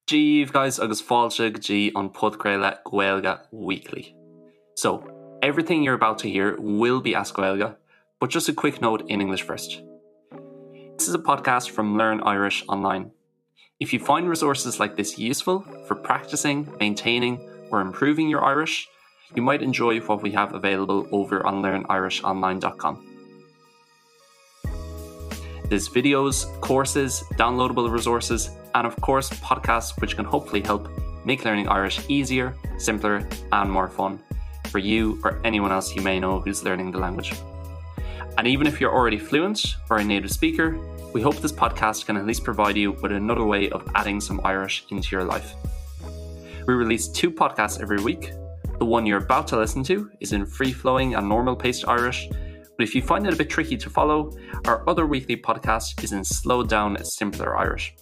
Dia daoibh guys agus fáilte go dtí an podchraoladh Gaeilge Weekly. So, everything you're about to hear will be as Gaeilge, but just a quick note in English first. This is a podcast from Learn Irish Online. If you find resources like this useful for practicing, maintaining or improving your Irish, you might enjoy what we have available over on learnirishonline.com. There's videos, courses, downloadable resources, and of course podcasts which can hopefully help make learning Irish easier, simpler and more fun for you or anyone else you may know who's learning the language. And even if you're already fluent or a native speaker, we hope this podcast can at least provide you with another way of adding some Irish into your life. We release two podcasts every week. The one you're about to listen to is in free-flowing and normal-paced Irish, but if you find it a bit tricky to follow, our other weekly podcast is in slowed down simpler Irish.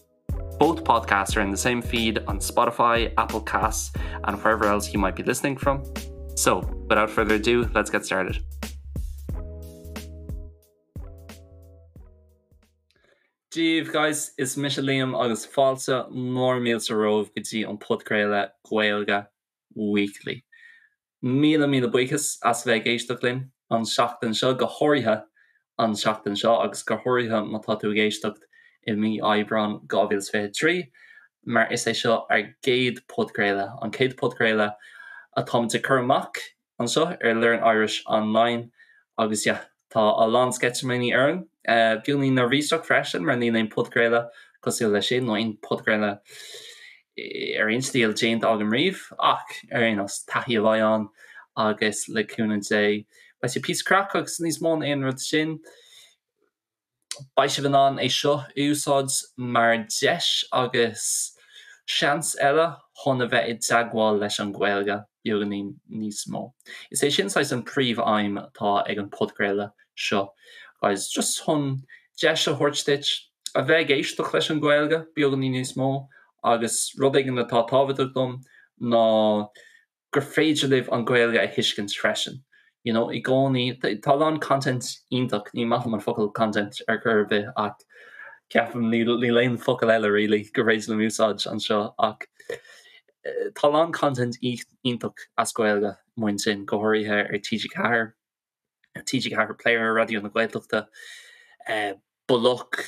Both podcasts are in the same feed on Spotify, Apple Casts, and wherever else you might be listening from. So, without further ado, let's get started. Dia daoibh guys, is mise Liam agus fáilte mór mílte romhaibh go dtí an podchraoladh Gaeilge Weekly. Míle míle buíochas as bheith ag éisteacht linn an seachtain seo, go háirithe an seachtain seo agus go háirithe má tá tú ag éisteacht i mí Aibreán 2023, mar is é seo ár gcéad podchraoladh, an chéad podchraoladh atáimid ag cur amach anseo ar Learn Irish Online agus yeah, tá a lán sceitimíní orainn. Beagáinín neirbhíseach freisin mar níl aon podchraoladh cosúil leis sin nó aon podchraoladh ar aon stíl déanta agam riamh ach ar aon nós, taithí a bheidh ann agus le cúnamh Dé beidh sé píosa craic agus níos mó ná aon rud sin. Beidh sibh in ann é seo a úsáid mar deis agus seans eile chun a bheith i dteagmháil leis an Ghaeilge beagáinín níos mó. Is é sin saghas an príomh-aidhm atá ag an podchraoladh seo guys, just chun deis a thabhairt duit a bheith ag éisteacht leis an Ghaeilge beagáinín níos mó agus rud éigin atá tábhachtach dom ná gur féidir libh an Ghaeilge a thuiscint freisin. You know, i gcónaí, tá a lán content iontach, ní maith liom an focal content ar chor ar bith ach ceapaim níl níl aon focal eile really gur féidir liom úsáid anseo ach tá a lán content iontach as Gaeilge amuigh ansin, go háirithe ar TG4. TG4 Player, Raidió na Gaeltachta, Bloc,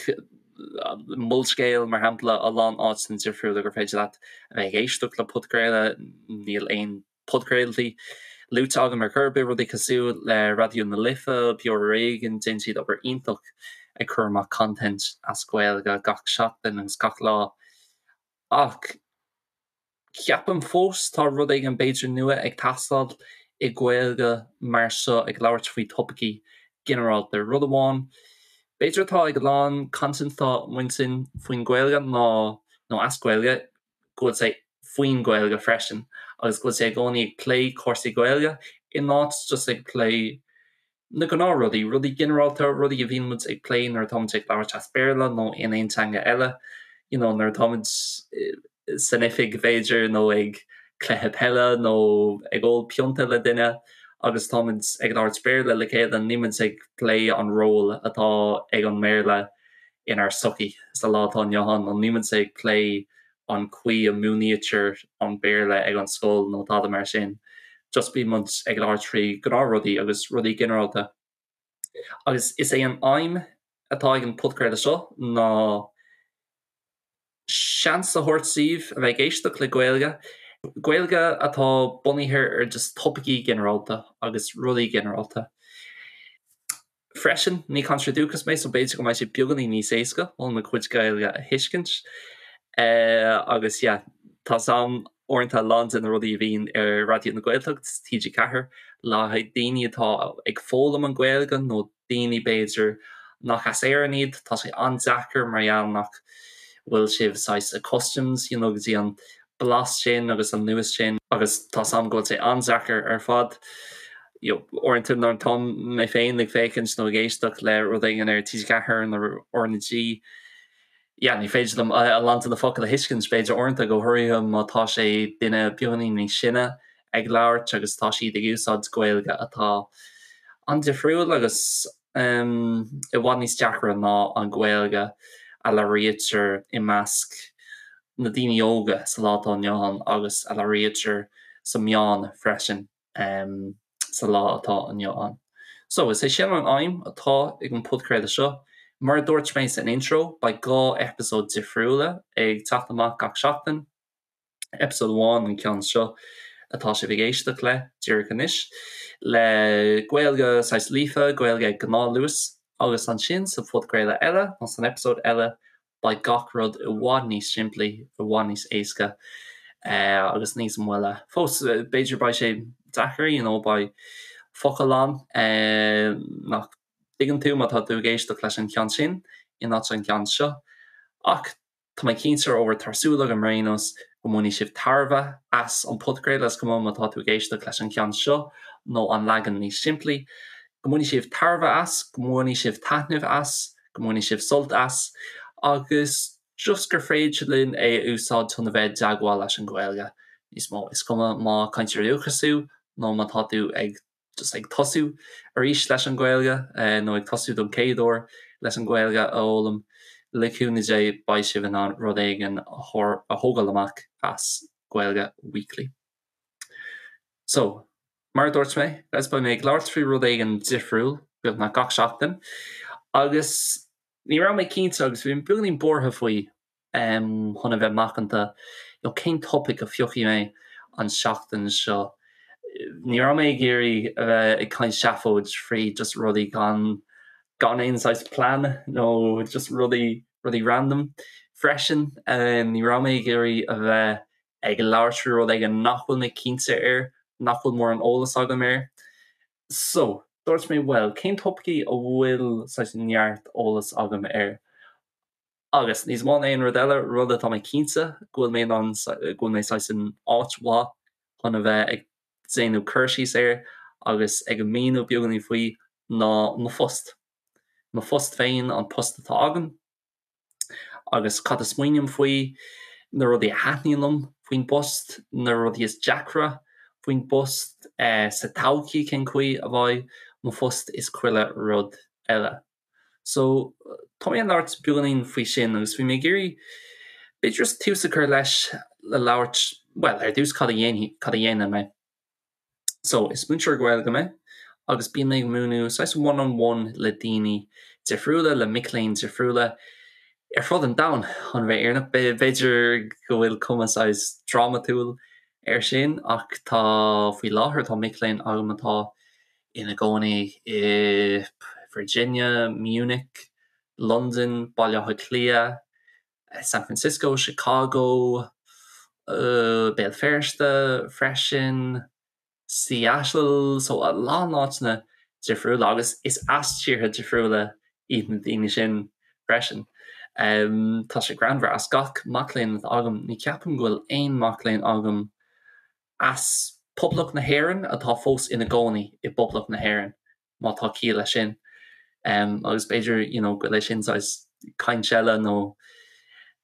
Molscéal, mar shampla, a lán áiteanna difriúla gur féidir leat a bheith ag éisteacht le podchraoladh. Níl aon podchraoltaí luaite agam ar chor ar bith, rudaí cosúil le Raidió na Life, Beo Ar Éigean, déanann siad obair iontach ag cur amach content as Gaeilge gach seachtain agus gach lá. Ach. Ceapaim fós tá rud éigin b'fhéidir nua ag teastáil i Gaeilge mar seo ag labhairt faoi topaicí ginearálta. Rud amháin b'fhéidir atá ag a lán content atá amuigh ansin faoin Ghaeilge ná, nó as Gaeilge, go bhfuil sé faoin Ghaeilge freisin agus go bhfuil sé i gcónaí ag plé cúrsaí Gaeilge in áit just ag plé na gnáthrudaí, rudaí ginearálta, rudaí a bhíonn muid ag plé nuair atá muid ag labhairt as Béarla nó in aon teanga eile, you know nuair atá muid san oifig b'fhéidir nó ag cluiche peile nó ag ól pionta le duine agus tá muid ag labhairt Béarla le chéile, níl muid ag plé an ról atá ag an mBéarla inár sochaí sa lá atá inniu ann nó níl muid ag plé an chaoi a múinítear an Béarla ag an scoil nó tada mar sin. Just bíonn muid ag labhairt faoi ghnáthrudaí agus rudaí ginearálta. Agus is é an aidhm atá ag an podchraoladh seo ná seans a thabhairt daoibh a bheith ag éisteacht le Gaeilge, Gaeilge atá bunaithe ar just topaicí ginearálta agus rudaí ginearálta. Freisin, ní cainteoir dúchais mé so b'fhéidir go mbeidh sé beagáinín níos éasca chun mo chuid Gaeilge a thuiscint. Agus yeah, tá 's a'm uaireanta a lán de na rudaí a bhíonn ar Raidió na Gaeltacht, TG4, le haghaidh daoine atá ag foghlaim an Ghaeilge nó daoine b'fhéidir nach as Éirinn iad, tá sé an-deacair mar gheall nach bhfuil sibh saghas accustomed, you know, go dtí an blas sin agus an luas sin agus tá 's a'm go bhfuil sé an-deacair ar fad. You know, uaireanta nuair atá mé féin ag féachaint nó ag éisteacht le rud éigin ar TG4 nó RnaG, yeah, ní féidir liom a lán de na focail a thuiscint, b'fhéidir uaireanta, go háirithe má tá sé duine beagáinín níos sine ag labhairt agus tá siad ag úsáid Gaeilge atá an-difriúil agus i bhfad níos deacra ná an Ghaeilge a labhraítear i measc. na daoine óga sa lá atá inniu ann agus a labhraítear sa meáin freisin sa lá atá inniu ann. So, is é sin an aidhm atá ag an podchraoladh seo. Mar a dúirt mé san intro, beidh 2 eipeasóid difriúla ag teacht amach gach seachtain. Episode amháin an ceann seo atá sibh ag éisteacht le díreach anois, le Gaeilge saghas líofa, Gaeilge ag gnáthluas, agus ansin sa phodchraoladh eile, nó san eipeasóid eile, beidh gach rud i bhfad níos simplí, i bhfad níos éasca agus níos moille. Fós, b'fhéidir beidh sé deacair, you know, beidh focail ann nach dtuigeann tú má tá tú ag éisteacht leis an cheann sin in áit an ceann seo, ach Tá mé cinnte, or tá súil agam ar aon nós, go mbainfidh sibh tairbhe as an podchraoladh, is cuma má tá tú ag éisteacht leis an cheann seo nó an leagan níos simplí, go mbainfidh sibh tairbhe as, go mbainfidh sibh taitneamh as, go mbainfidh sibh sult as, agus just gur féidir linn é a úsáid chun a bheith i dteagmháil leis an Ghaeilge níos mó. Is cuma má cainteoir dúchais thú nó má tá tú ag just ag tosú arís leis an Ghaeilge nó ag tosú don chéad uair leis an Ghaeilge a fhoghlaim, le cúnamh Dé beidh sibh in ann rud éigin a thógáil amach as Gaeilge Weekly. So, mar a dúirt mé, guys, beidh mé ag labhairt faoi rud éigin difriúil beagnach gach seachtain agus ní raibh mé cinnte agus bhí mé beagáinín buartha faoi chun a bheith macanta, you know cén topaic a phiocfaidh mé an seachtain seo. Ní raibh mé ag iarraidh a bheith ag caint seafóid faoi just rudaí gan gan aon saghas plean nó just rudaí rudaí random freisin. Ní raibh mé ag iarraidh a bheith ag labhairt faoi rud éigin nach bhfuil mé cinnte air, nach bhfuil mórán eolas agam air. So, dúirt mé bhuel, cén topaicí a bhfuil saghas neart eolas agam air? Agus, níos mó ná aon rud eile, rud atá mé cinnte go bhfuil mé in ann, go bhfuil mé saghas in áit mhaith chun a bheith ag déanamh cur síos air agus ag míniú beagáinín faoi, ná mo phost. Mo phost féin, an post atá agam, agus cad a smaoiním faoi, na rudaí a thaitníonn liom faoin bpost, na rudaí is deacra faoin bpost, sa todhchaí cén chaoi a bheidh mo phost is chuile rud eile. So, tá mé ag labhairt beagáinín faoi sin agus bhí mé ag iarraidh b'fhéidir just tús a chur leis le labhairt, bhuel, ar dtús cad a dhéanfaidh, cad a dhéanann mé. So, is múinteoir Gaeilge mé agus bíonn mé ag múineadh saghas one on one le daoine difriúla, le mic léinn difriúla ar fud an domhain, chun a bheith fírinneach. B'fhéidir go bhfuil cuma saghas drámatúil air sin ach tá, faoi láthair, tá mic léinn agam atá ina gcónaí i Virginia, Munich, Londain, Baile Átha Cliath, San Francisco, Chicago, Béal Feirste freisin, Seattle, so a lán áiteanna difriúla agus is as tíortha difriúla iad na daoine sin freisin. Tá sé greannmhar, as gach mac léinn atá agam, ní ceapaim go bhfuil aon mac léinn agam as Poblacht na hÉireann atá fós ina gcónaí i bPoblacht na hÉireann, má tá ciall leis sin. Agus b'fhéidir you know go bhfuil é sin saghas caint eile nó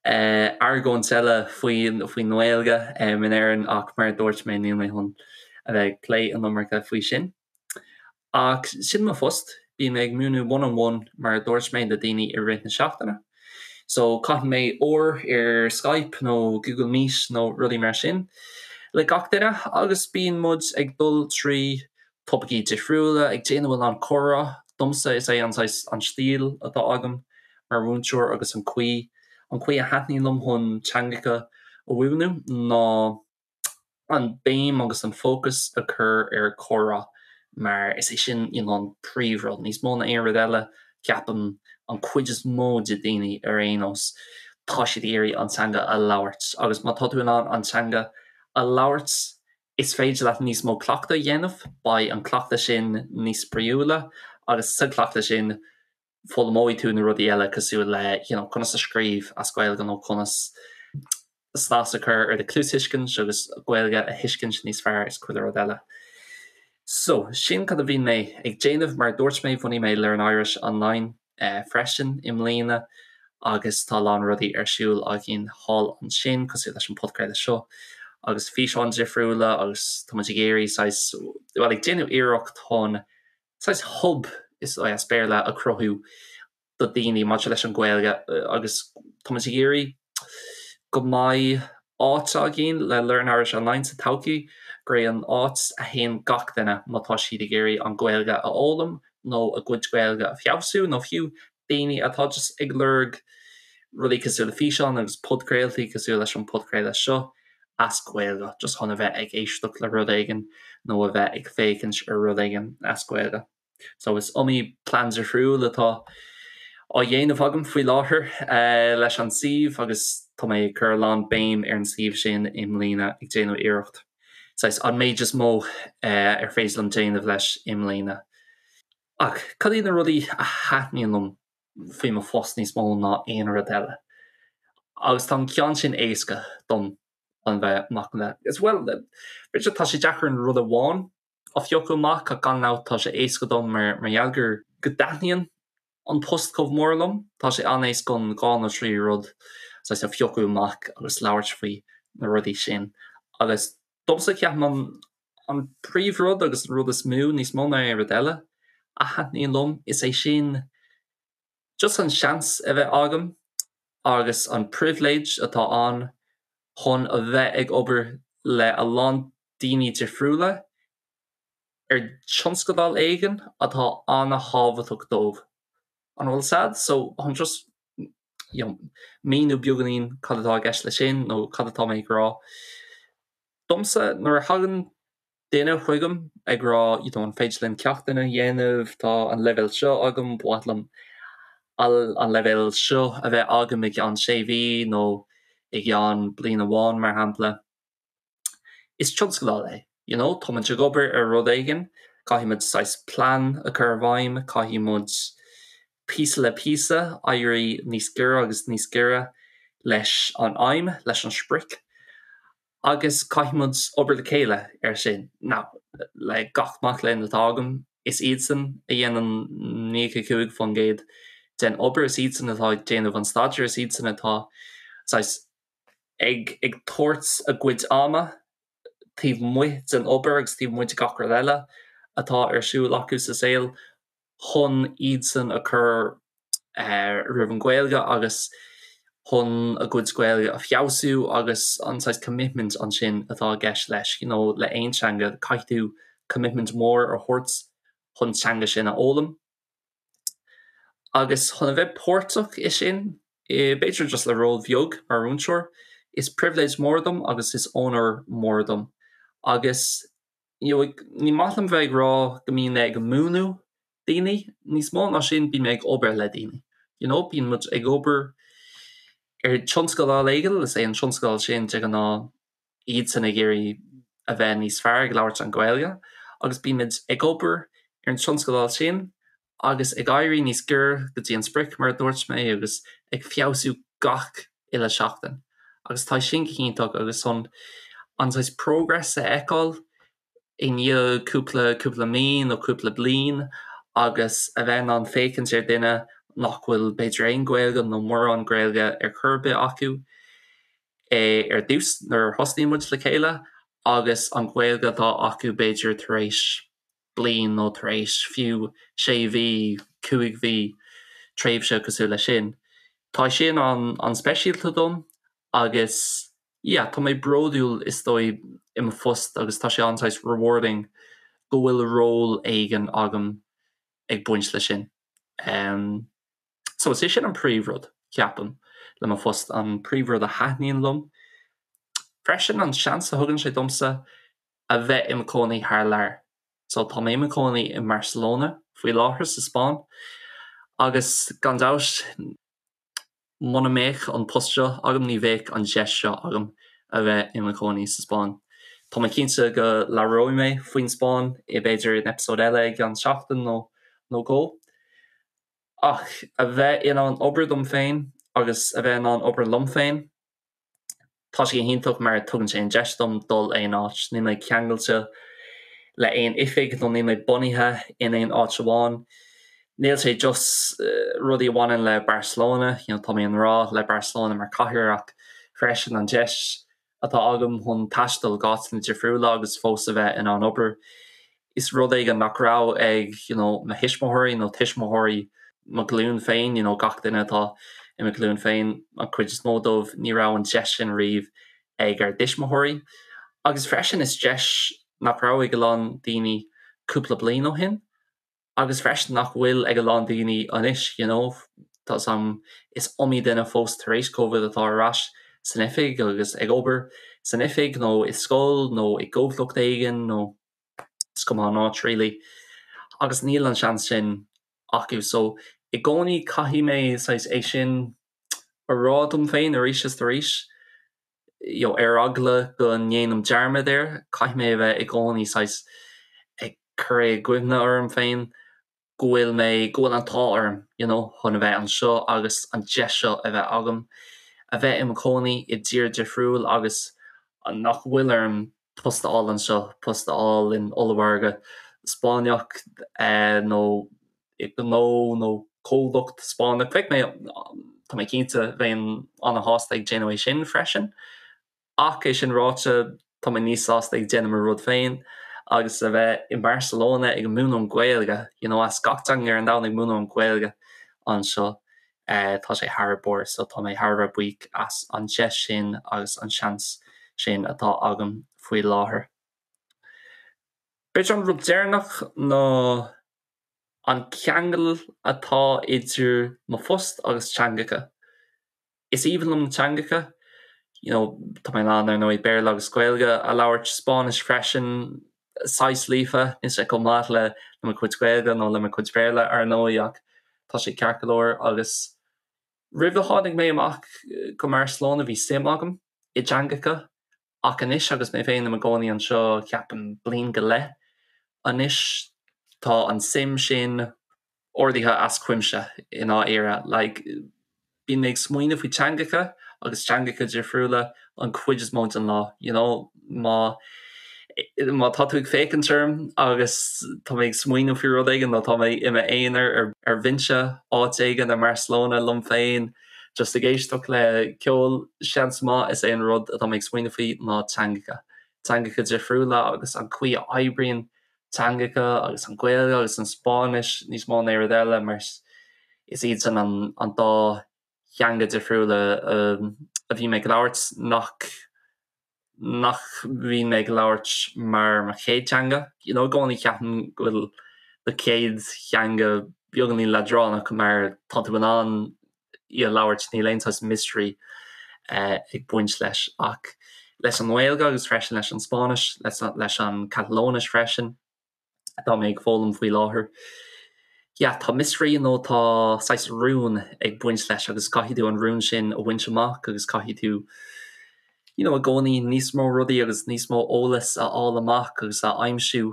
argóint eile faoin faoin nGaeilge in Éirinn ach mar a dúirt mé níl mé chun a bheith ag plé an iomarca faoi sin. Ach sin mo phost, bím ag múineadh one on one mar a dúirt mé le daoine i rith na seachtaine. So caitheann mé uair ar Skype nó Google Meet nó rudaí mar sin le gach duine agus bíonn muid ag dul trí topaicí difriúla, ag déanamh a lán comhrá. Domsa is é an saghas an stíl atá agam mar mhúinteoir agus an chaoi an chaoi a thaitníonn liom chun teangacha a mhúineadh ná an béim agus an fócas a chur ar chomhrá mar is é sin you know an príomhrud. Níos mó ná aon rud eile, ceapaim, an chuid is mó de daoine ar aon nós, tá siad ag iarraidh an teanga a labhairt agus má tá tú in ann an teanga a labhairt, is féidir leat níos mó cleachtadh a dhéanamh, beidh an cleachtadh sin níos spraíúla agus sa chleachtadh sin foghlaimeoidh tú na rudaí eile cosúil le you know conas a scríobh as Gaeilge nó conas snas a chur ar do chluastuiscint agus Gaeilge a thuiscint níos fearr is chuile rud eile. So, sin cad a bhíonn mé ag déanamh. Mar a dúirt mé, bhunaigh mé Learn Irish Online freisin i mbliana agus tá a lán rudaí ar siúl againn thall ansin cosúil leis an podchraoladh seo agus físeáin difriúla agus tá muid ag iarraidh saghas, bhuel ag déanamh iarracht chun saghas hub is as Béarla a chruthú do daoine maidir leis an Ghaeilge agus tá muid ag iarraidh. go mbeidh áit againn le Learn Irish Online sa todhchaí, gurb é an áit a théann gach duine má tá siad ag iarraidh an Ghaeilge a fhoghlaim nó a gcuid Gaeilge a feabhsú nó fiú daoine atá just ag lorg rudaí cosúil le físeáin agus podchraoltaí cosúil leis an podchraoladh seo as Gaeilge, just chun a bheith ag éisteacht le rud éigin nó a bheith ag féachaint ar rud éigin as Gaeilge. So is iomaí plean difriúil atá á dhéanamh agam faoi láthair leis an suíomh agus tá mé ag cur a lán béim ar an suíomh sin i mbliana ag déanamh iarracht saghas an méid is mó ar féidir liom déanamh leis i mbliana. Ach cad iad na rudaí a thaitníonn liom faoi mo phost níos mó ná aon rud eile? Agus tá an ceann sin éasca dom chun bheith macánta. Is bhuel, b'fhéidir tá sé deacair an rud amháin a phiocadh amach ach gan dabht tá sé éasca dom mar gheall gur go dtaitníonn an post chomh mór liom. Tá sé an-éasca an 2 nó 3 rud saghas a phiocadh amach agus labhairt faoi na rudaí sin. Agus domsa ceapaim an an príomhrud agus an rud is mó, níos mó ná aon rud eile, a thaitníonn liom, is é sin just an seans a bheith agam agus an pribhléid atá ann chun a bheith ag obair le a lán daoine difriúla ar tionscadal éigin atá an-thábhachtach dóibh. An bhfuil sad? So chun just you know, míniú beagáinín cad atá i gceist leis sin nó cad atá mé ag rá. Domsa, nuair a thagann duine chugam ag rá you know, an féidir linn ceachtanna a dhéanamh, tá an leibhéal seo agam, ba mhaith liom an leibhéal seo a bheith agam i gceann sé mhí nó i gceann bliain amháin mar shampla. Is tionscadal é, you know, tá muid ag obair ar rud éigin, caithfidh muid saghas plean a chur i bhfeidhm, caithfidh muid píosa le píosa éirí níos giorra agus níos giorra leis an aidhm, leis an sprioc. Agus caithfidh muid obair le chéile ar sin. Now, le gach mac léinn atá agam, is iadsan a dhéanann 95% den obair, is iadsan atá ag déanamh an staidéir, is iadsan atá saghas ag ag tabhairt a gcuid ama taobh amuigh den obair agus taobh amuigh de gach rud eile atá ar siúl acu sa saol chun iadsan a chur roimh an Ghaeilge agus chun a gcuid Gaeilge a feabhsú agus an saghas commitment ansin atá i gceist leis, you know le aon teanga caithfidh tú commitment mór a thabhairt chun teanga sin a fhoghlaim. Agus chun a bheith páirteach i sin, b'fhéidir just le ról bheag mar mhúinteoir, is pribhléid mór dom agus is onóir mór dom. Agus you know ní maith liom bheith ag rá go mbíonn mé ag múineadh daoine, níos mó ná sin bíonn mé ag obair le daoine. You know bíonn muid ag obair ar tionscadal éigin, is é an tionscadal sin de ghnáth iadsan ag iarraidh a bheith níos fearr ag labhairt an Ghaeilge agus bímid ag obair ar an tionscadal sin agus ag éirí níos giorra go dtí an sprioc mar a dúirt mé agus ag feabhsú gach uile seachtain agus tá sin go hiontach agus chun an saghas progress a fheiceáil i ndiaidh cúpla cúpla mí nó cúpla bliain agus a bheith in ann féachaint ar duine nach bhfuil b'fhéidir aon Ghaeilge nó mórán Gaeilge ar chor ar bith acu ar dtús nuair a thosnaíonn muid le chéile agus an Ghaeilge atá acu b'fhéidir tar éis bliain nó tar éis fiú sé mhí, 5 mhí, tréimhse cosúil leis sin. Tá sin an-speisialta dom agus yeah tá mé bródúil is dóigh i mo phost agus tá sé an-saghas rewarding go bhfuil ról éigin agam ag baint leis sin. Um, so is é sin an príomhrud, ceapaim, le mo phost, an príomhrud a thaitníonn liom. Freisin an seans a thugann sé domsa a bheith i mo chónaí thar lear. So tá mé i mo chónaí i mBarcelona faoi láthair sa Spáinn agus gan dabht muna mbeadh an post seo agam ní bheadh an deis seo agam a bheith i mo chónaí sa Spáinn. Tá mé cinnte go labhróidh mé faoin Spáinn i b'fhéidir in eipeasóid eile i gceann seachtain nó nó dhó. Ach a bheith in ann obair dom féin agus a bheith in ann obair liom féin, Tá sé go hiontach mar tugann sé an deis dom dul aon áit. Níl mé ceangailte le aon oifig nó níl mé bunaithe in aon áit amháin. Níl sé just rudaí a bhaineann le Barcelona, you know, tá mé i ngrá le Barcelona mar cathair ach freisin an deis atá agam chun taisteal go áiteanna difriúla agus fós a bheith in ann obair. Is rud éigin nach raibh ag you know mo thuismitheoirí nó tuismitheoirí mo ghlúin féin, you know gach duine atá i mo ghlúin féin, an chuid is mó dóibh, ní raibh an deis sin riamh ag ár dtuismitheoirí. Agus freisin is deis nach raibh ag a lán daoine cúpla bliain ó shin agus freisin nach bhfuil ag a lán daoine anois, you know, tá 's agam is iomaí duine fós tar éis Covid atá ar ais san oifig agus ag obair san oifig nó i scoil nó i gcomhlacht éigin nó is cuma an áit really agus níl an seans sin acu so i gcónaí caithfidh mé saghas é sin a rá dom féin arís is arís you know ar eagla go ndéanaim dearmad air caithfidh mé a bheith i gcónaí saghas ag cur é i gcuimhne orm féin go bhfuil mé, go bhfuil an t-ádh orm you know chun a bheith anseo agus an deis seo a bheith agam, a bheith i mo chónaí i dtír difriúil agus nach bhfuil orm post a fháil anseo, post a fháil in ollmhargadh Spáinneach nó i ngnó nó comhlacht Spáinneach. Bheadh mé, tá mé cinnte, bheinn an-shásta ag déanamh é sin freisin. Ach é sin ráite, tá mé níos sásta ag déanamh mo rud féin agus a bheith i mBarcelona ag múineadh an Ghaeilge, you know, as gach teanga ar an domhan ag múineadh an Ghaeilge anseo, tá sé thar barr. So tá mé thar a bheith buíoch as an deis sin agus an seans sin atá agam faoi láthair. B'fhéidir an rud deireanach ná an ceangal atá idir mo phost agus teangacha. Is aoibhinn liom na teangacha, you know, tá mé in ann, ar ndóigh, Béarla agus Gaeilge a labhairt, Spáinnis freisin, saghas líofa, níl sé chomh maith le mo chuid Gaeilge nó le mo chuid Béarla, ar ndóigh, ach tá sé ceart go leor. Agus roimh a tháinig mé amach go mBarcelona bhí suim agam i dteangacha Ach anois agus mé féin i mo gcónaí anseo, ceapaim, bliain go leith anois, tá an suim sin ardaithe as cuimse i ndáiríre. Like, bíonn mé ag smaoineamh faoi teangacha agus teangacha difriúla an chuid is mó den lá, you know, má má tá tú ag féachaint orm agus tá mé ag smaoineamh faoi rud éigin nó tá mé i m'aonar ar ar bhinse áit éigin i mBarcelona liom féin, Just ag éisteacht le ceol, seans maith is é an rud atá mé ag smaoineamh faoi ná teangacha. Teangacha difriúla agus an chaoi a oibríonn teangacha agus an Ghaeilge agus an Spáinnis níos mó ná aon rud eile mar is iad sin an an dá theanga difriúla a bhí mé ag labhairt nach nach mbíonn mé ag labhairt mar mo chéad teanga. You know, i gcónaí ceapaim go bhfuil do chéad theanga beagáinín leadránach mar tá tú in ann í a labhairt, níl aon saghas mystery ag baint leis. Ach leis an nGaeilge agus freisin leis an Spáinnis, leis an Catalóinis freisin, atá mé ag foghlaim faoi láthair. Yeah, tá mystery nó tá saghas rún ag baint leis agus caithfidh tú an rún sin a bhaint amach agus caithfidh tú you know, i gcónaí níos mó rudaí agus níos mó eolas a fháil amach agus a aimsiú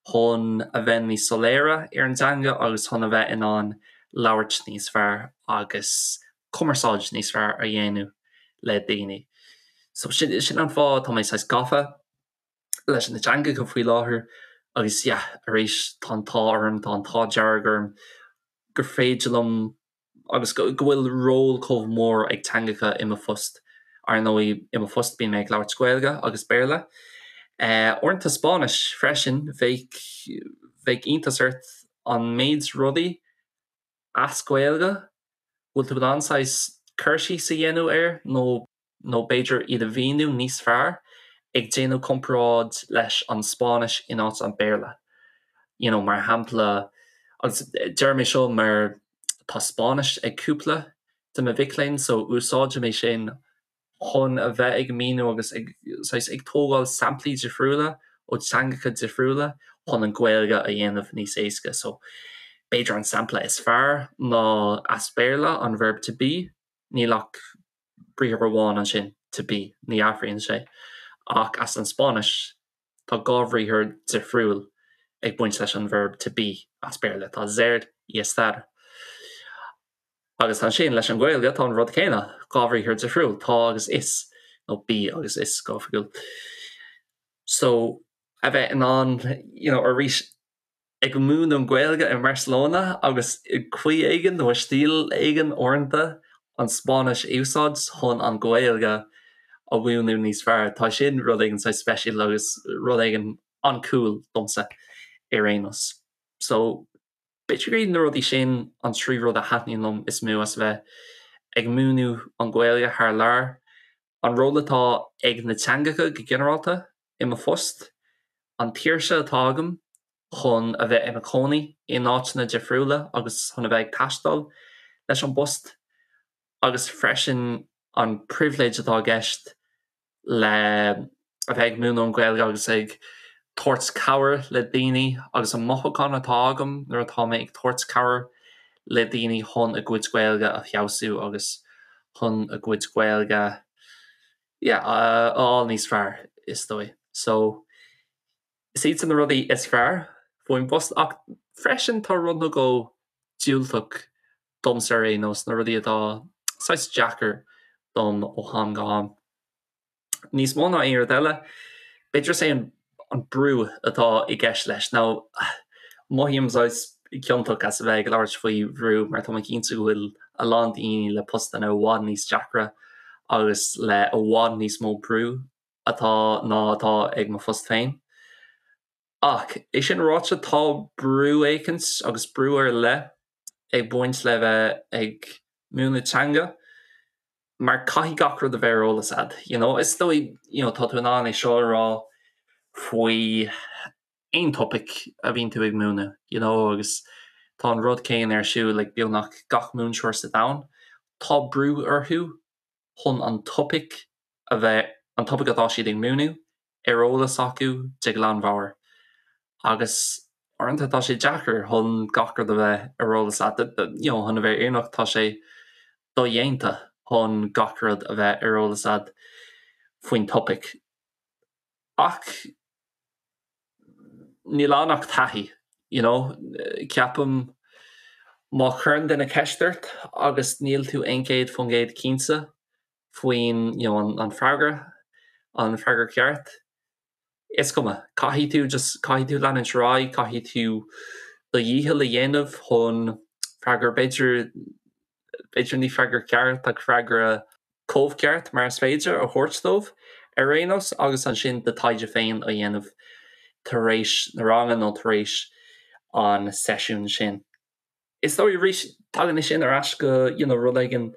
chun a bheith níos soiléire ar an dteanga agus chun a bheith in ann labhairt níos fearr agus cumarsáid níos fearr a dhéanamh le daoine. So sin, sin an fáth tá mé saghas gafa leis na teangacha faoi láthair agus yeah, arís tá an t-ádh orm, tá an t-ádh dearg orm gur féidir liom agus go bhfuil ról chomh mór ag teangacha i mo phost. Ar ndóigh, i mo phost bíonn mé ag labhairt Gaeilge agus Béarla. Uaireanta Spáinnis freisin, bheadh, bheadh iontas ort an méid rudaí as Gaeilge bhfuil tú in ann saghas cur síos a dhéanamh air nó nó b'fhéidir iad a mhíniú níos fearr ag déanamh comparáid leis an Spáinnis in áit an Béarla. You know, mar shampla, agus deirim é seo mar tá Spáinnis ag cúpla de mo mhic léinn so úsáidim é sin chun a bheith ag míniú agus ag, saghas, ag tógáil samplaí difriúla ó teangacha difriúla chun an Ghaeilge a dhéanamh níos éasca. So b'fhéidir an sampla is fearr ná as Béarla an verb to be, níl ach briathar amháin ansin, to be, ní athraíonn sé. Ach as an Spáinnis, tá dhá bhriathar difriúil ag baint leis an verb to be as Béarla, tá ser y estar. Agus ansin leis an Ghaeilge tá an rud céanna, dhá bhriathar difriúil, tá agus is, nó bí agus is go hoifigiúil. So, a bheith in ann, you know, arís, ag múineadh an Ghaeilge i mBarcelona agus i gcaoi éigin nó i stíl éigin uaireanta an Spáinnis a úsáid chun an Ghaeilge a mhúineadh níos fearr. Tá sin rud éigin saghas speisialta agus rud éigin an-cool domsa ar aon nós. So b'fhéidir gur iad na rudaí sin an trí rud a thaitníonn liom is mó as a bheith. ag múineadh an Ghaeilge thar lear, an ról atá ag na teangacha go ginearálta i mo phost, an tsaoirse atá agam chun a bheith i mo chónaí in áiteanna difriúla agus chun a bheith ag taisteal leis an bpost, agus freisin an pribhléid atá i gceist le a bheith ag múineadh an Ghaeilge agus ag tabhairt cabhair le daoine agus an mothúchán atá agam nuair atá mé ag tabhairt cabhair le daoine chun a gcuid Gaeilge a feabhsú agus chun a gcuid Gaeilge yeah a fháil níos fearr is dóigh. So is iad sin na rudaí is fearr faoin bpost ach freisin tá rud nó dhó diúltach domsa ar aon nós, na rudaí atá saghas deacair dom ó am go ham. Níos mó ná aon rud eile, b'fhéidir is é an brú atá i gceist leis. Now, mothaím saghas ciontach as a bheith ag labhairt faoi bhrú mar tá mé cinnte go bhfuil a lán daoine le postanna i bhfad níos deacra agus le i bhfad níos mó brú atá ná atá ag mo phost féin. Ach é sin ráite, tá brú éicint agus brú ar leith ag baint le bheith ag múineadh teanga mar caithfidh gach rud a bheith ar eolas a'd, you know. Is dóigh, you know, tá tú in ann é seo a rá faoi aon topaic a bhíonn tú ag múineadh, you know, agus tá an rud céanna ar siúl ag beagnach gach múinteoir sa domhan. Tá brú orthu chun an topaic a bheith, an topaic atá siad ag múineadh, ar eolas acu de ghlanmheabhair agus uaireanta tá sé deacair chun gach rud a bheith ar eolas a't, you know chun a bheith fírinneach tá sé dodhéanta chun gach rud a bheith ar eolas a't faoin topaic. Ach níl ann ach taithí, you know, ceapaim má chuireann duine ceist ort agus níl tú 100% cinnte faoin you know an an freagra, an freagra ceart. Is cuma, caithfidh tú just caithfidh tú leanúint ar aghaidh, caithfidh tú do dhícheall a dhéanamh chun freagra b'fhéidir b'fhéidir ní freagra ceart ach freagra chomh ceart mar is féidir a thabhairt dóibh ar aon nós agus ansin do taighde féin a dhéanamh tar éis na ranga nó tar éis an seisiún sin. Is dóigh arís, tagann é sin ar ais go you know rud éigin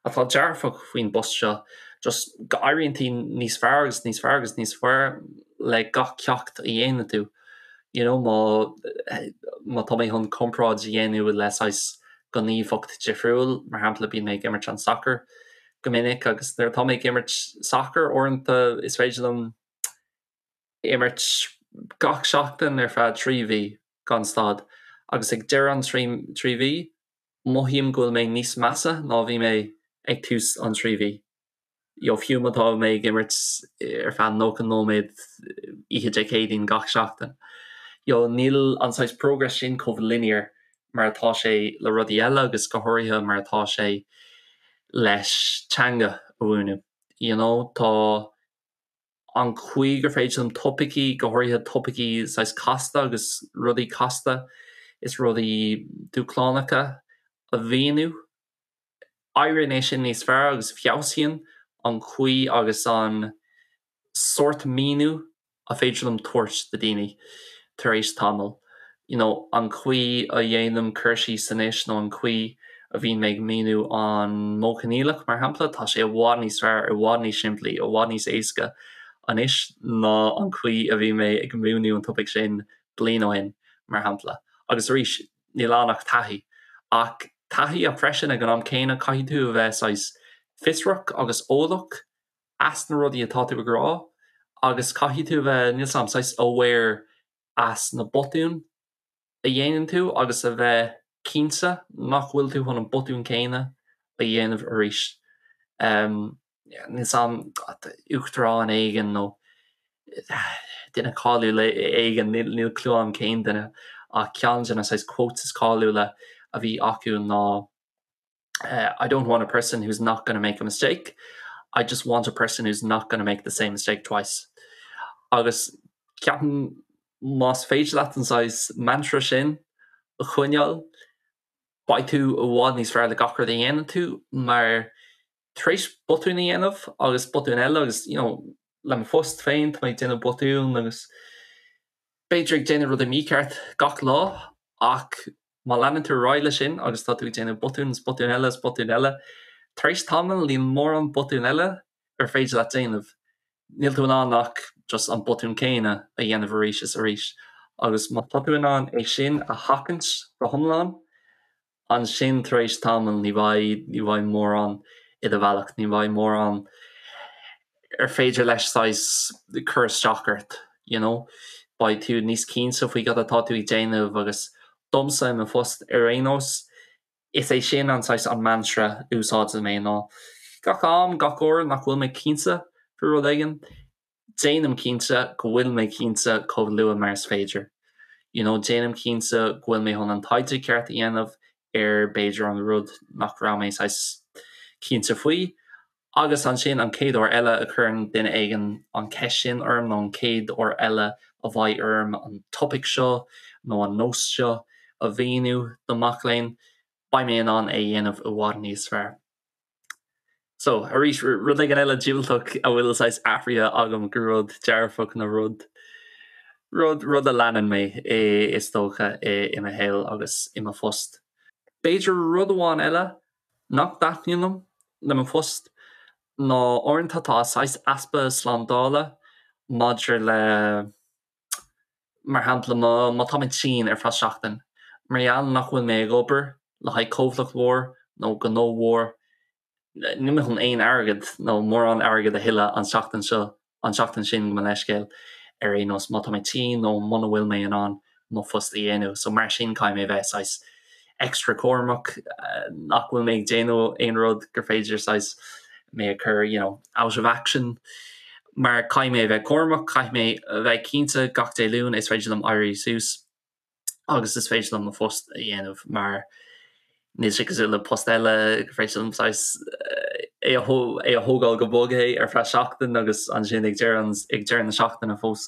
atá dearfach faoin bpost seo, just go éiríonn tú níos fearr agus níos fearr agus níos fearr le gach ceacht a dhéanann tú. You know má má tá mé chun comparáid a dhéanamh le saghas gníomhaíocht difriúil, mar shampla bíonn mé ag imirt an sacar go minic agus nuair atá mé ag imirt sacar uaireanta is féidir liom imirt gach seachtain ar feadh 3 mhí gan stad agus ag deireadh an 3 mhí, mothaím go bhfuil mé níos measa ná bhí mé ag tús an 3 mhí. You know, fiú má tá mé ag imirt ar feadh 90 nóiméad oíche Dé Céadaoin gach seachtain. You know, níl an saghas progress sin chomh linear mar atá sé le rudaí eile agus go háirithe mar atá sé leis teanga a mhúineadh. You know, tá an chaoi gur féidir liom topaicí, go háirithe topaicí saghas casta agus rudaí casta is rudaí dúshlánacha a mhíniú. Éiríonn é sin níos fearr agus feabhsaíonn an chaoi agus an sórt míniú a féidir liom tabhairt do daoine tar éis tamaill. You know, an chaoi a dhéanaim cur síos anois nó an chaoi a bhíonn mé ag míniú an modh coinníollach, mar shampla, tá sé i bhfad níos fearr, i bhfad níos simplí, i bhfad níos éasca anois ná an chaoi a bhí mé ag múineadh an topaic sin bliain ó shin, mar shampla. Agus arís, níl ann ach taithí. Ach taithí ach freisin ag an am céanna caithfidh tú a bheith saghas fiosrach agus eolach as na rudaí atá tú ag rá agus caithfidh tú a bheith, níl 's a'm, saghas aware as na botúin a dhéanann tú agus a bheith cinnte nach bhfuil tú chun an botún céanna a dhéanamh arís. Níl 's a'm, uachtarán éigin nó duine cáiliúil éigin, níl clue a'm cén duine, ach ceann de na saghas quotes is cáiliúla a bhí acu ná I don't want a person who's not gonna make a mistake, I just want a person who's not gonna make the same mistake twice. Agus ceapaim más féidir leat an saghas mantra sin a choinneáil, beidh tú i bhfad níos fearr le gach rud a dhéanann tú mar tar éis botún a dhéanamh agus botún eile agus you know le mo phost féin tá mé ag déanamh botún agus b'fhéidir ag déanamh rudaí mícheart gach lá ach Má leanann tú ar aghaidh leis sin agus tá tú ag déanamh botún is botún eile is botún eile. Tar éis tamaill níl mórán botún eile ar féidir leat déanamh. Níl tú in ann ach just an botún céanna a dhéanamh arís is arís. Agus má tá tú in ann é sin a sheachaint go hiomlán, ansin tar éis tamaill ní bheidh, ní bheidh mórán i do bhealach, ní bheidh mórán ar féidir leis saghas cur isteach ort, you know. Beidh tú níos cinnte faoi cad atá tú ag déanamh agus domsa i mo phost ar aon nós, Is é sin an saghas an mantra a úsáideann mé ná gach am, gach uair nach bhfuil mé cinnte faoi rud éigin, déanaim cinnte go bhfuil mé cinnte chomh luath mar is féidir. You know, déanaim cinnte go bhfuil mé chun an taighde ceart a dhéanamh ar b'fhéidir an rud nach raibh mé saghas cinnte faoi. Agus ansin an chéad uair eile a chuireann duine éigin an cheist sin orm nó an chéad uair eile a bheidh orm an topaic seo nó an nós seo a mhíniú do mac léinn, beidh mé in ann é a dhéanamh i bhfad níos fearr. So, arís, rud éigin eile diúltach a bhfuil saghas athraithe agam go rud dearfach nó rud, rud, rud a leanann mé is dócha i mo shaol agus i mo phost. B'fhéidir rud amháin eile nach dtaitníonn liom le mo phost ná uaireanta tá saghas easpa slándála maidir le, mar shampla, má tá mé tinn ar feadh seachtain, mar gheall nach bhfuil mé ag obair le haghaidh comhlacht mhór nó gnó mhór, níl mé chun aon airgead nó mórán airgead a thuilleadh an tseachtain seo an tseachtain sin, gabh mo leithscéal, ar aon nós, má tá mé tinn nó muna bhfuil mé in ann mo phost a dhéanamh. So mar sin caithfidh mé a bheith saghas extra cúramach nach bhfuil mé ag déanamh aon rud gur féidir saghas mé a chur you know out of action mar caithfidh mé a bheith cúramach, caithfidh mé a bheith cinnte gach Dé Luain is féidir liom éirí suas. agus is féidir liom mo phost a dhéanamh mar níl sé cosúil le post eile gur féidir liom saghas é a é a thógáil go bog é ar feadh seachtain agus ansin ag deireadh ag deireadh na seachtaine fós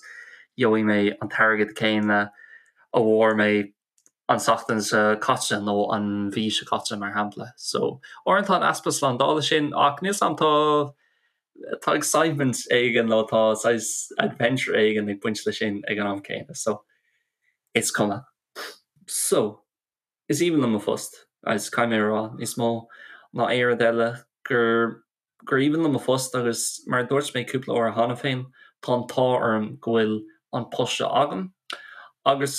gheobhaidh mé an t-airgead céanna a bhfuair mé an tseachtain seo caite nó an mhí seo caite mar shampla. So uaireanta an easpa slándála sin ach níl 's a'm tá tá excitement éigin nó tá saghas adventure éigin ag baint leis sin ag an am céanna. So is cuma. So, is aoibhinn liom mo phost, agus caithfidh mé a rá, níos mó ná aon rud eile, gur gur aoibhinn liom mo phost agus mar a dúirt mé cúpla uair cheana féin, tá an t-ádh orm go bhfuil an post seo agam agus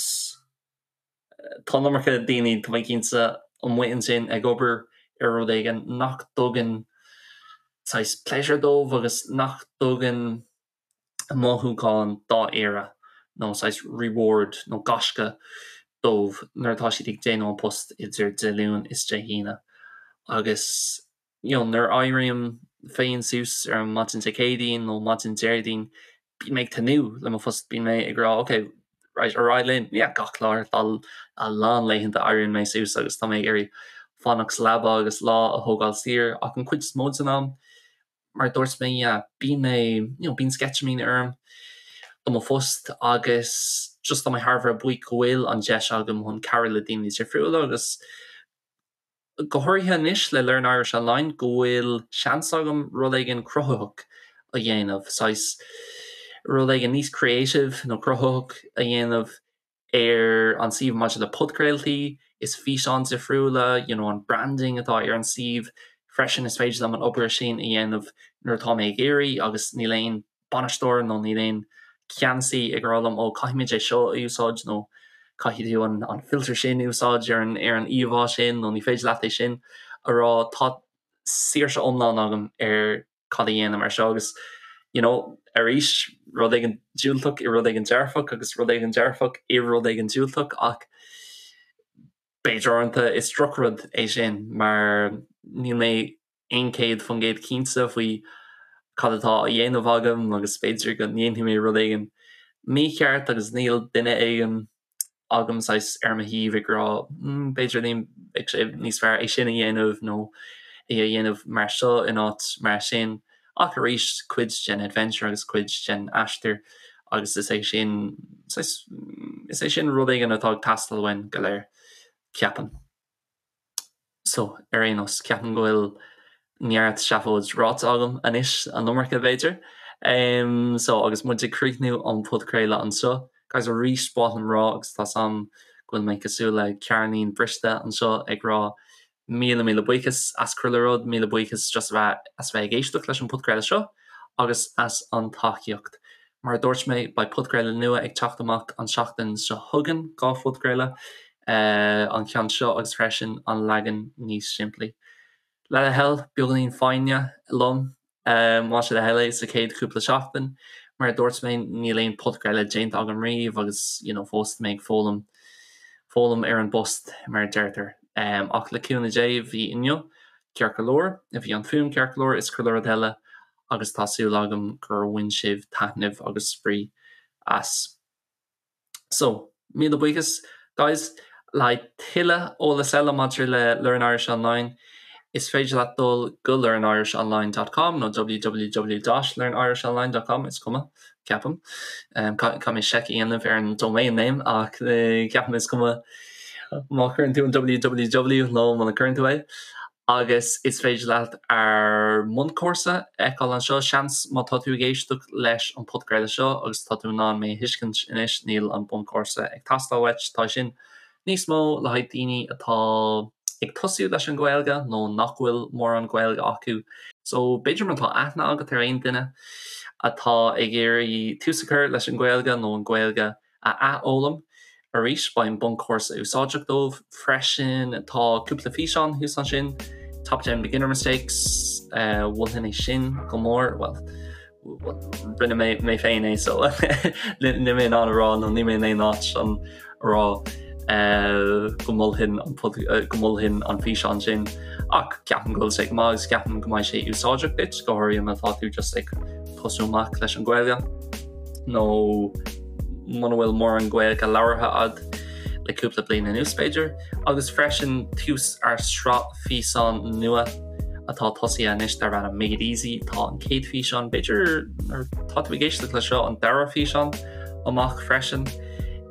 tá an iomarca daoine, tá mé cinnte, amuigh ansin ag obair ar rud éigin nach dtugann saghas pleasure dóibh agus nach dtugann mothúchán dáiríre nó saghas reward nó gaisce dóibh nuair atá siad ag déanamh an post idir Dé Luain is Dé hAoine. Agus you know nuair a éirím féin suas ar an maidin Dé Céadaoin nó maidin Déardaoin bíonn mé ag tnúth le mo phost, bíonn mé ag rá ok right ar aghaidh linn, yeah gach lá tá a lán laethanta éiríonn mé suas agus tá mé ag iarraidh fanacht sa leaba agus lá a thógáil saor ach an chuid is mó den am mar a dúirt mé, yeah, bíonn mé, you know, bíonn sceitimíní orm do mo phost agus just tá mé thar a bheith buíoch go bhfuil an deis agam chun cabhrú le daoine difriúla agus go háirithe anois le Learn Irish Online go bhfuil seans agam rud éigin cruthaitheach a dhéanamh, saghas rud éigin níos creative nó cruthaitheach a dhéanamh ar an suíomh maidir le podchraoltaí is físeáin difriúla, you know an branding atá ar an suíomh freisin is féidir liom an obair sin a dhéanamh nuair atá mé ag iarraidh agus níl aon bainisteoir nó níl aon ceannasaí ag rá liom ó caithfimid é seo a úsáid nó caithfidh tú an an filter sin a úsáid ar an ar an íomhá sin nó ní féidir leat é sin a rá tá saoirse iomlán agam ar cad a dhéanaim ar seo agus you know arís rud éigin diúltach i rud éigin dearfach agus rud éigin dearfach i rud éigin diúltach ach b'fhéidir uaireanta is drochrud é sin mar níl mé 100% cinnte faoi cad atá á dhéanamh agam agus b'fhéidir go ndéanfaidh mé rud éigin mícheart agus níl duine éigin agam saghas ar mo thaobh ag rá mm b'fhéidir ní bheadh sé níos fearr é sin a dhéanamh nó é a dhéanamh mar seo in áit mar sin. Ach arís cuid den adventure agus cuid den aistear agus is é sin saghas is é sin rud éigin atá ag teastáil uainn go léir, ceapaim. So, ar aon nós, ceapaim go bhfuil neart seafóid ráite agam anois, an iomarca b'fhéidir. So, agus muid ag críochnú an podchraoladh anseo, guys, arís ba mhaith liom rá, agus tá 's a'm go bhfuil mé cosúil le ceirnín briste anseo ag rá. Míle míle buíochas as chuile rud, míle buíochas just a bheith as bheith ag éisteacht leis an podchraoladh seo agus as an tacaíocht. Mar a dúirt mé, beidh podchraoladh nua ag teacht amach an seachtain seo chugainn, 2 phodchraoladh, an ceann seo agus freisin an leagan níos simplí. Le do thoil, beagáinín foighne liom, más é do thoil é, sa chéad chúpla seachtain. Mar a dúirt mé, níl aon podchraoladh déanta agam riamh agus you know fós tá mé ag foghlaim, foghlaim ar an bpost mar a deirtear. Ach le cúnamh Dé, bhí inniu ceart go leor, bhí an fuaim ceart go leor is chuile rud eile agus tá súil agam gur bhain sibh taitneamh agus spraoi as. So, míle buíochas, guys! Le haghaidh tuilleadh eolas eile maidir le Learn Irish Online, is féidir leat dul go learnirishonline dot com nó www dot learnirishonline dot com, is cuma, ceapaim. Caithfidh mé seic a dhéanamh ar an domain name ach ceapaim is cuma má chuireann tú an www nó muna gcuireann tú é. Agus is féidir leat ár mbunchúrsa a fheiceáil anseo. Seans má tá tú ag éisteacht leis an podchraoladh seo agus tá tú in ann mé a thuiscint anois, níl an bunchúrsa ag teastáil uait. Tá sin níos mó le haghaidh daoine atá ag tosú leis an Ghaeilge nó nach bhfuil mórán Gaeilge acu. So b'fhéidir má tá aithne agat ar aon duine atá ag iarraidh tús a chur leis an Ghaeilge nó an Ghaeilge a athfhoghlaim arís. Beidh an bunchúrsa úsáideach dóibh freisin. Tá cúpla físeán thuas ansin, Top 10 Beginner Mistakes, mholfainn é sin go mór, bhuel, rinne mé mé féin é so níl mé in ann a rá nó níl mé in aon áit chun a rá go mholfainn an go mholfainn an físeán sin ach ceapaim go bhfuil sé go maith agus ceapaim go mbeidh sé úsáideach duit, go háirithe má tá tú just ag tosú amach leis an Ghaeilge. nó muna bhfuil mórán Gaeilge labhartha a'd le cúpla bliain anuas b'fhéidir, agus freisin tús ár sraith físeán nua atá tosaithe anois darb ainm Made Easy. Tá an chéad físeán, b'fhéidir nuair tá tú ag éisteacht le seo, an dara físeán amach freisin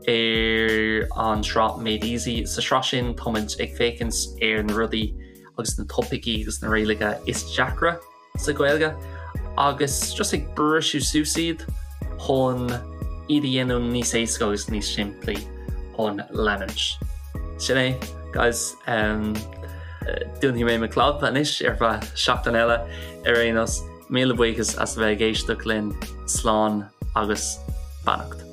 ar an sraith Made Easy. Sa sraith sin táimid ag féachaint ar na rudaí agus na topaicí agus na rialacha is deacra sa Ghaeilge agus just ag briseadh suas iad chun iad a dhéanamh níos éasca agus níos simplí chun leanúint. Sin é, guys. Um, dúnfaidh mé mo chlab anois ar feadh seachtain eile ar aon nós. Míle buíochas as a bheith ag éisteacht linn slán agus beannacht.